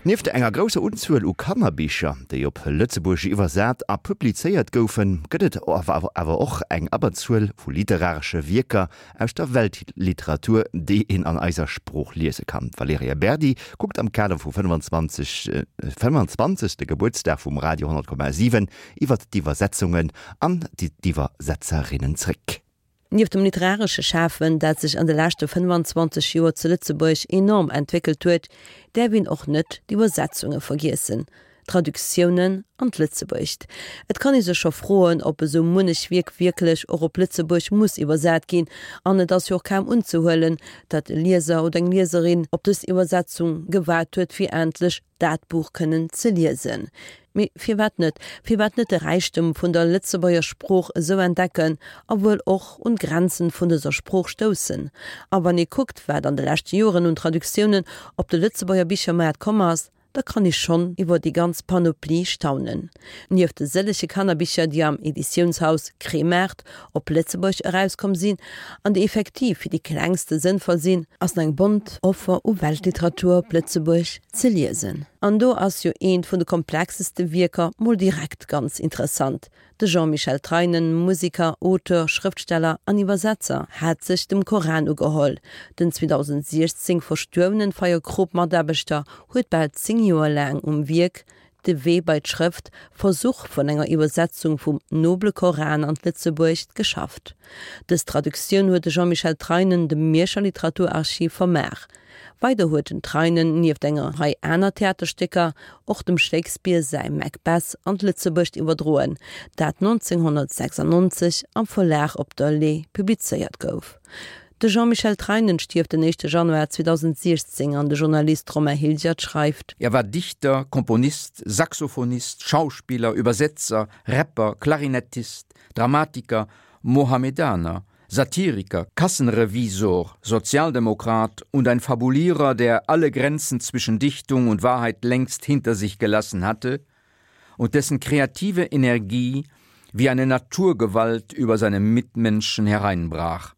Nieft enger grousser Unzuel u Kannerbicher, déi op Lëtzebuergesch iwwersat a publizéiert goufen, gëtt et awer och eng Abberzuel vu literaresche Wierker aus der Weltliteratur, déi een an eiser Sprooch liese kann. D'Valerija Berdi kuckt am Kader vum 25. 25. Gebuertsdag vum Radio 10,7 iwwert d'Iwwersetzungen an d'Iwwersetzerinnen zréck. Nieft dem literaresche Schafen, dat sech an de leschte 25 Joer zu Lëtzebuerg enorm entwéckelt huet, däerf een och net d'Iwwersetzunge vergiessen, d'Traductiounen an d'Lëtzebuergescht. Et kann ee sech scho froen, ob esou munnech Wierk wierklech och op Lëtzebuerg muss iwwersat ginn, an et ass jo och kaum unzehuelen, datt e Lieser oder eng Lieserin op dës Iwwersetzung gewaart huet, fir endlech dat Buch kënnen ze liesen. Mee firwat net? Firwat net de Räichtum vun der Lëtzebuerger Sprooch esou entdecken a wuel och un d'Grenzen vun dëser Sprooch stoussen? A wann ee kuckt, wat an de leschte Joren un Traductiounen op de Lëtzebuerger Bichermaart komm ass, da kann ee schonn iwwer déi ganz Panoplie staunen. Nieft de sëllege Kannerbicher, déi am Editiounshaus Kremart op Lëtzebuerg erauskomm sinn an déi effektiv fir déi Klengste sënnvoll sinn, ass eng bont Offer u Weltliteratur op Lëtzebuerg ze liesen. An do ass jo eent vun de komplexeste Wierker mol direkt ganz interessant. De Jean-Michel Treinen, Musiker, Auteur, Schrëftsteller an Iwwersetzer, hat sech dem Koran ugeholl. Den 2016 verstuerwenen Feierkrop-Mataarbechter huet bal 10 Joer laang um Wierk De Wee bei d'Schrëft, Versuch vun enger Iwwersetzung vum Noble Koran an d'Lëtzebuergescht geschafft. Dës Traductioun huet de Jean-Michel Treinen dem Mierscher Literaturarchiv vermaach. Weider huet den Treinen nieft enger Rei aner Theaterstécker och dem Shakespeare säi Macbeth an d'Lëtzebuergescht iwwerdroen, dat 1996 am Verlag Op der Le'h publizéiert gouf. De Jean-Michel Treinen stierft den éischte Januar 2016 an de Journalist Romain Hilgert schreift. Er war Dichter, Komponist, Saxophonist, Schauspieler, Übersetzer, Rapper, Klarinettist, Dramatiker, Mohammedaner, Satiriker, Kassenrevisor, Sozialdemokrat und ein Fabulierer, der alle Grenzen zwischen Dichtung und Wahrheit längst hinter sich gelassen hatte und dessen kreative Energie wie eine Naturgewalt über seine Mitmenschen hereinbrach.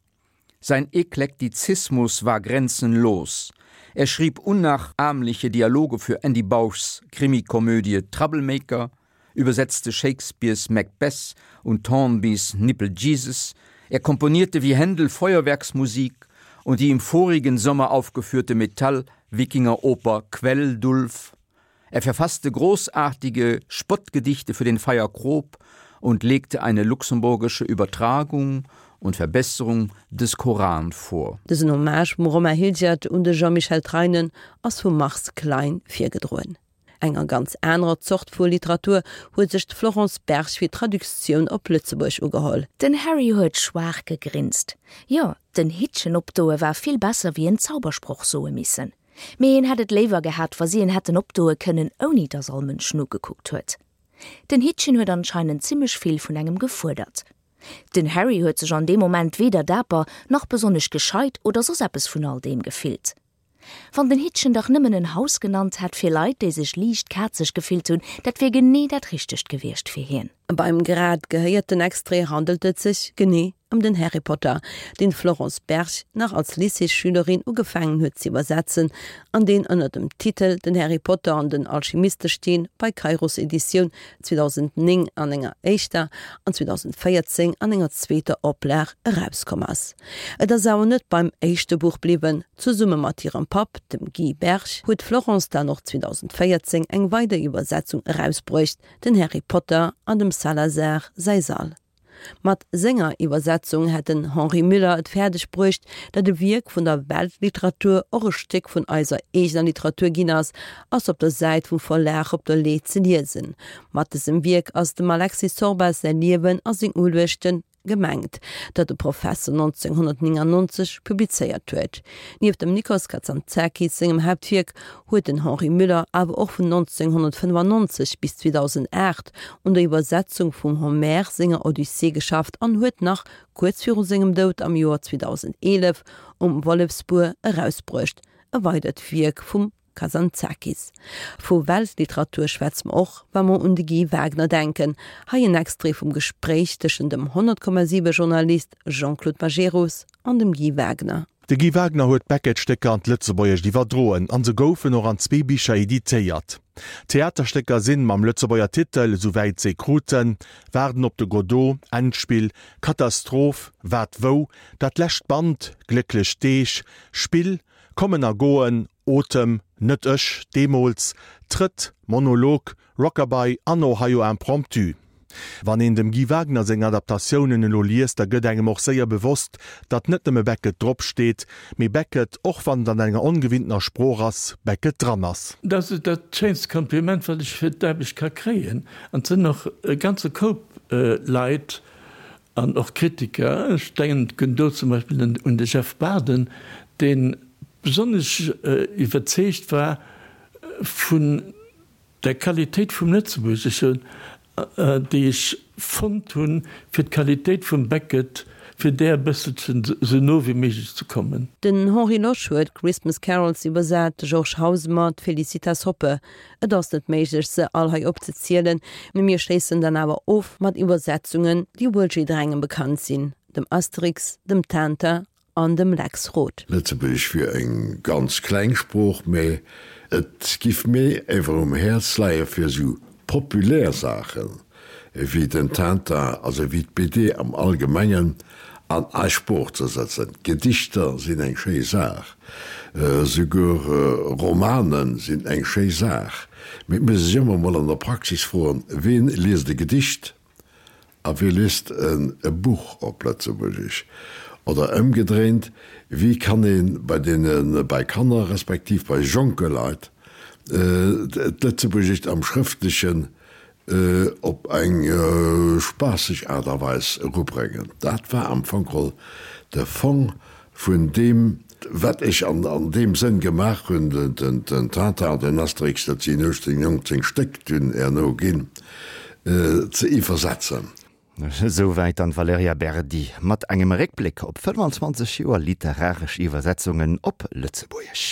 Sein Eklektizismus war grenzenlos. Er schrieb unnachahmliche Dialoge für Andy Bauschs Krimikomödie Troublemaker, übersetzte Shakespeares Macbeth und Thornbys Nipple Jesus, er komponierte wie Händel Feuerwerksmusik und die im vorigen Sommer aufgeführte Metall-Wikingeroper Quelldulf. Er verfasste großartige Spottgedichte für den Feier Krob und legte eine luxemburgische Übertragung und Verbesserung des Koran vor. Dësen Hommage vum Romain Hilgert un de Jean-Michel Treinen ass vum Mars Klein virgedroen. Enger ganz anerer Zort vu Literatur huet sech d'Florence Berg fir d'Traductioun op Lëtzebuerg ugeholl. Den Harry huet schwaach gegrinst. Jo, den Hittchen opdoe war vill besser wéi en Zaubersproch soe missen. Mee en hätt et léiwer gehat, wa si en hätten opdoe kënnen, ouni dass all Mënsch nogekuckt huet. Den Hittchen huet anscheinend zimmlech vill vun engem gefuerdert. Den Harry huet sech an deem Moment weder daper, nach besonnesch gescheit oder soss eppes vun all deem gefillt. Wann den Hittchen dach nëmmen en Haus genannt hätt fir Leit, déi sech liicht kazeg gefillt hunn, dat wier genee dat Richtegt gewiescht fir hien. Beim grad gehéierten Extrait handelt et sech genee ëm den Harry Potter, deen d'Florence Berg nach als Lycéesschülerin ugefaangen huet ze iwwersetzen an deen ënner dem Titel Den Harry Potter an den Alchemistesteen bei Kairos Editioun 2009 an enger éischter an 2014 an enger zweeter Oplag erauskomm ass. Et ass awer net beim éischte Buch bliwwen, zesumme mat hirem Papp, dem Guy Berg, huet d'Florence dann och 2014 eng weider Iwwersetzung erausbruecht, Den Harry Potter an dem Salazar säi Sall. Mat senger Iwwersetzung hätt den Henri Müller et fäerdeg bruecht, datt e Wierk vun der Weltliteratur och e Stéck vun eiser eegener Literatur ginn ass, ass op der Säit vum Verlag op der Le'h ze liesen. Mat dësem Wierk ass dem Alexis Sorbas säi Liewen a seng Uluechten gemengt, dat de Professer 1999 publizéiert huet. Nieft dem Nikos Kazantzakis sengem Haaptwierk huet den Henri Müller awer och vun 1995 bis 2008 un der Iwwersetzung vum Homer senger Odyssee geschafft an huet nach kuerz viru sengem Doud am Joer 2011 Um Wollefsbuer erausbruecht, e weidert Wierk vum Kazantzakis. Vu Weltliteratur schwätze mer och, wa mer un de Guy Wagner denken. Hei en Extrait vum Gespréich tëschent dem 100,7 Journalist Jean-Claude Majerus an dem Guy Wagner. De Guy Wagner huet d'Beckett-Stécker an d'Lëtzebuergescht iwwerdroen an se goufen och an zwee Bicher editéiert. D'Theaterstécker sinn, mam Lëtzebuerger Titel, esouwäit s'ee kruten, Waarden op de Godot, Endspill, Katastroph, Wat wou, Dat lescht Band, Glécklech Deeg, Spill, Kommen a Goen, Otem, Net ech, Deemools, Trëtt, Monolog, Rockabye an Ohio Impromptu. Wann een dem Guy Wagner seng Adaptatiounen elo liest, da gëtt engem och séier bewosst, datt net nëmme Beckett drop steet, mee Beckett, och wann et an enger ongewinntener Sprooch ass, Beckett dran ass. Dat ass dat schéinst Kompliment, wat ech fir d'Aarbecht ka kréien. An et sinn och e ganze Koup Leit an och Kritiker, ech denken do zum Beispill un de Jeff Baden, dee besonnesch iwwerzeegt war vun der Qualitéit vum Lëtzebuergeschen, déi ech fonnt hunn, fir d'Qualitéit vum Beckett, fir där e bësselchen esou no wéi méiglech ze kommen. Den Henri Losch huet Christmas Carols iwwersat, de Georges Hausemer d'Felicitas Hoppe. Et ass net méiglech, se all hei opzezielen, mee mir schléissen dann awer of mat Iwwersetzungen, déi wuel jidderengem bekannt sinn, dem Asterix, dem Tintin an dem Lex Roth. Lëtzebuergesch wier eng ganz kleng Sprooch, mä et giff mir ewer um Häerz leie fir esou populär Saachen ewéi den Tintin, also ewéi d'BD am Allgemengen, an eis Sprooch ze setzen. Gedichter sinn eng schéi Saach, esouguer Romane sinn eng schéi Saach, mee et muss ee sech ëmmer emol an der Praxis froen, Ween liest e Gedicht? A wéi liest en e Buch op Lëtzebuergesch? Oder ëmgedréint, wéi kann ee bei deene, bei Kanner respektiv bei jonke Leit d'Lëtzebuergescht am Schrëftlechen op eng spaasseg Aart a Weis erubréngen? Dat war am Fong geholl de Fong vun deem, wat ech an deem Sënn gemaach hunn, den Tintin an den Asterix, dat sinn 18, 19 Stéck dunn herno ginn, ze iwwersetzen. Esouwäit dann d'Valerija Berdi mat engem Réckbléck op 25 Joer literaresch Iwwersetzungen op Lëtzebuergesch.